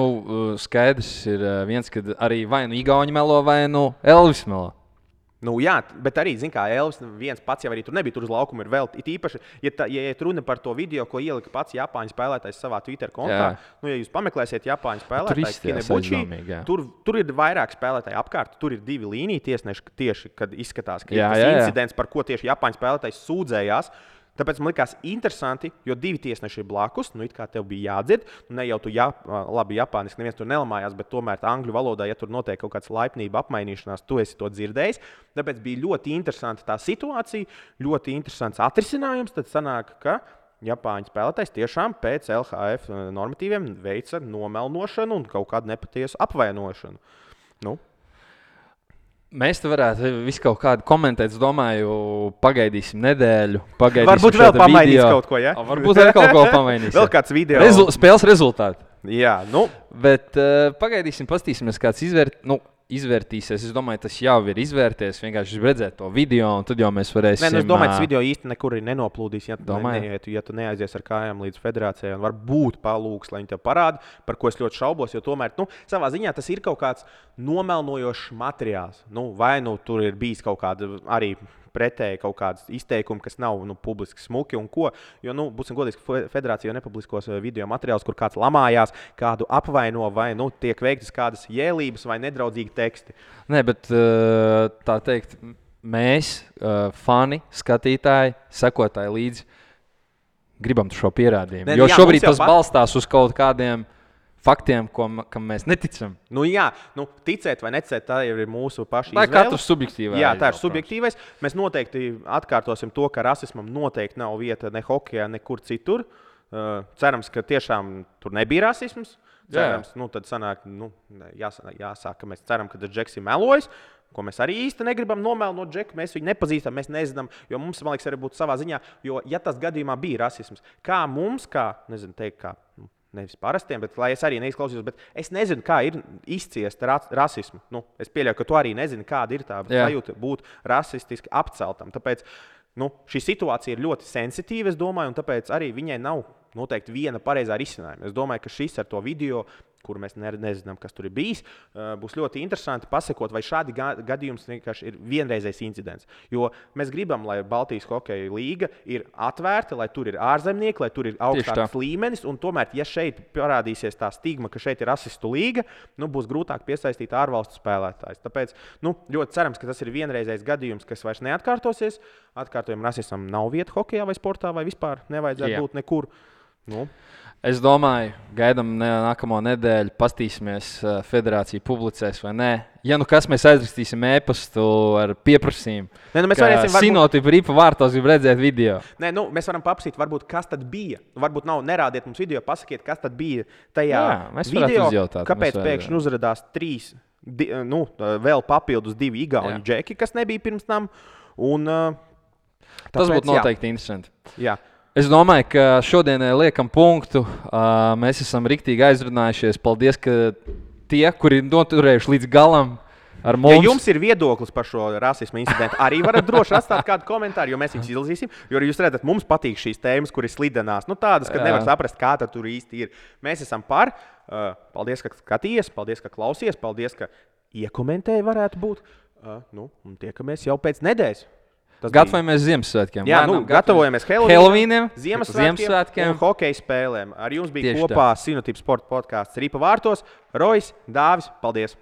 skaidrs ir viens, kad arī vai Igauņi melo, vai Elvis melo. Jā, bet arī, Elvis viens pats jau arī tur nebija, tur uz laukuma ir vēl. It īpaši, ja runa par to video, ko ielika pats Japāņu spēlētājs savā Twitter kontā, ja jūs pameklēsiet Japāņu spēlētājs Kinebuči, tur ir vairāk spēlētāji apkārt, tur ir 2 līniju tiesneši tieši, kad izskatās, ka ir tas incidents, par ko tieši Japāņu spēlētājs sūdzējās. Tāpēc man likās interesanti, jo 2 tiesneši ir blakus. It kā tev bija jādzird. Ne jau tu labi japāniski, neviens tur nelamājās, bet tomēr angļu valodā, ja tur notiek kaut kāds laipnība apmainīšanās, tu esi to dzirdējis. Tāpēc bija ļoti interesanti tā situācija, ļoti interesants atrisinājums. Tad sanāk, ka Japāņu spēlētājs tiešām pēc LHF normatīviem veica nomelnošanu un kaut kādu nepatiesu apvainošanu. Mēs te varētu visu kaut kādu komentēt. Es domāju, pagaidīsim nedēļu. Varbūt vēl pamainīs kaut ko, ja? Varbūt vēl kaut ko pamainīs. Vēl kāds video. Spēles rezultāti. Jā, nu. Bet pagaidīsim, pastīsimies, kāds izvērtīsies. Es domāju, tas jau ir izvērties. Vienkārši redzēt to video, un tad jau mēs varēsim. Es domāju, tas video īsti nekur nenoplūdīs, ja tu neaizies ar kājām līdz federācijai. Un varbūt palūgs, lai viņi tev parāda, par ko es ļoti šaubos. Jo tomēr, savā ziņā tas ir kaut kāds nomelnojošs materiāls. Vai tur ir bijis kaut kāda arī pretēji kaut kādas izteikumi, kas nav publiski smuki un ko. Jo, būsim godīgi, federācija nepubliskos video materiālus, kur kāds lamājās, kādu apvaino vai tiek veiktas kādas jēlības vai nedraudzīgi teksti. Nē, bet tā teikt, mēs, fani, skatītāji, sekotāji līdzi, gribam šo pierādījumu. Jo šobrīd tas balstās uz kaut kādiem faktiem, kam mēs neticam. Ticēt vai neticēt, tā jau ir mūsu paša izvēle. Tā ir katrs subjektīvais. Jā, tā ir subjektīvais. Mēs noteikti atkārtosim to, ka rasismam noteikti nav vieta ne hokejā, nekur citur. Cerams, ka tiešām tur nebija rasisms. Cerams, tad sanāk, jāsāk, ka mēs ceram, ka tas Džeks ir melojis, ko mēs arī īsti negribam nomelnot Džeku. Mēs viņu nepazīstam, mēs nezinām, jo mums, man liekas, arī būtu savā ziņā, jo, ja tas gadījumā bija rasisms, kā mums, nevis parastiem, bet lai es arī neizklausījos, bet es nezinu, kā ir izciest rasismu. Es pieļauju, ka tu arī nezini, kāda ir tā sajūta būt rasistiski apceltam. Tāpēc šī situācija ir ļoti sensitīva, es domāju, un tāpēc arī viņai nav noteikti viena pareizā risinājuma. Es domāju, ka šis ar to video, kuru mēs nezinām, kas tur ir bijis, būs ļoti interesanti pasekot, vai šādi gadījums vienkārši ir vienreizējs incidents. Jo mēs gribam, lai Baltijas hokeja līga ir atvērta, lai tur ir ārzemnieki, lai tur ir augstāks līmenis, un tomēr, ja šeit parādīsies tā stigma, ka šeit ir rasistu līga, būs grūtāk piesaistīt ārvalstu spēlētājus. Tāpēc ļoti cerams, ka tas ir vienreizējs gadījums, kas vairs neatkārtosies. Atkārtojam, rasismam nav vieta hokejā vai sportā, vai vispār nevajadzētu būt nekur. Es domāju, gaidām nākamo nedēļu, pastīsimies, federācija publicēs vai nē. Ja kas, mēs aizrakstīsim e-pastu ar pieprasījumu. Mēs varēsim Sinotipa Ripa vārtos grib redzēt video. Mēs varam paprasīt, varbūt, kas tad bija. Varbūt nerādiet mums video, pasakiet, kas tad bija tajā video. Uzjautāt, kāpēc pēkšņi uzrādās 3, vēl papildus 2 igauņu džeki, kas nebija pirms tam. Tas būtu noteikti interesanti. Jā. Es domāju, ka šodienai liekam punktu. Mēs esam riktīgi aizrunājušies. Paldies, ka tie, kuri noturējuši līdz galam ar mums. Ja jums ir viedoklis par šo rasismu incidentu, arī varat droši atstāt kādu komentāru, jo mēs viņus izlasīsim. Jo jūs redzat, mums patīk šīs tēmas, kuras slidenās. Tādas, ka nevar saprast, kā tur īsti ir. Mēs esam par. Paldies, ka skatījies, paldies, ka klausies, paldies, ka iekomentēji varētu būt. Un tiekamies jau pēc nedēļas. Gatavojamies Ziemassvētkiem. Jā, gatavojamies Helovīniem, Ziemassvētkiem un hokeja spēlēm. Ar jums bija kopā Sinotipa sporta podkāsts Ripa vārtos. Rojs, Dāvis, paldies!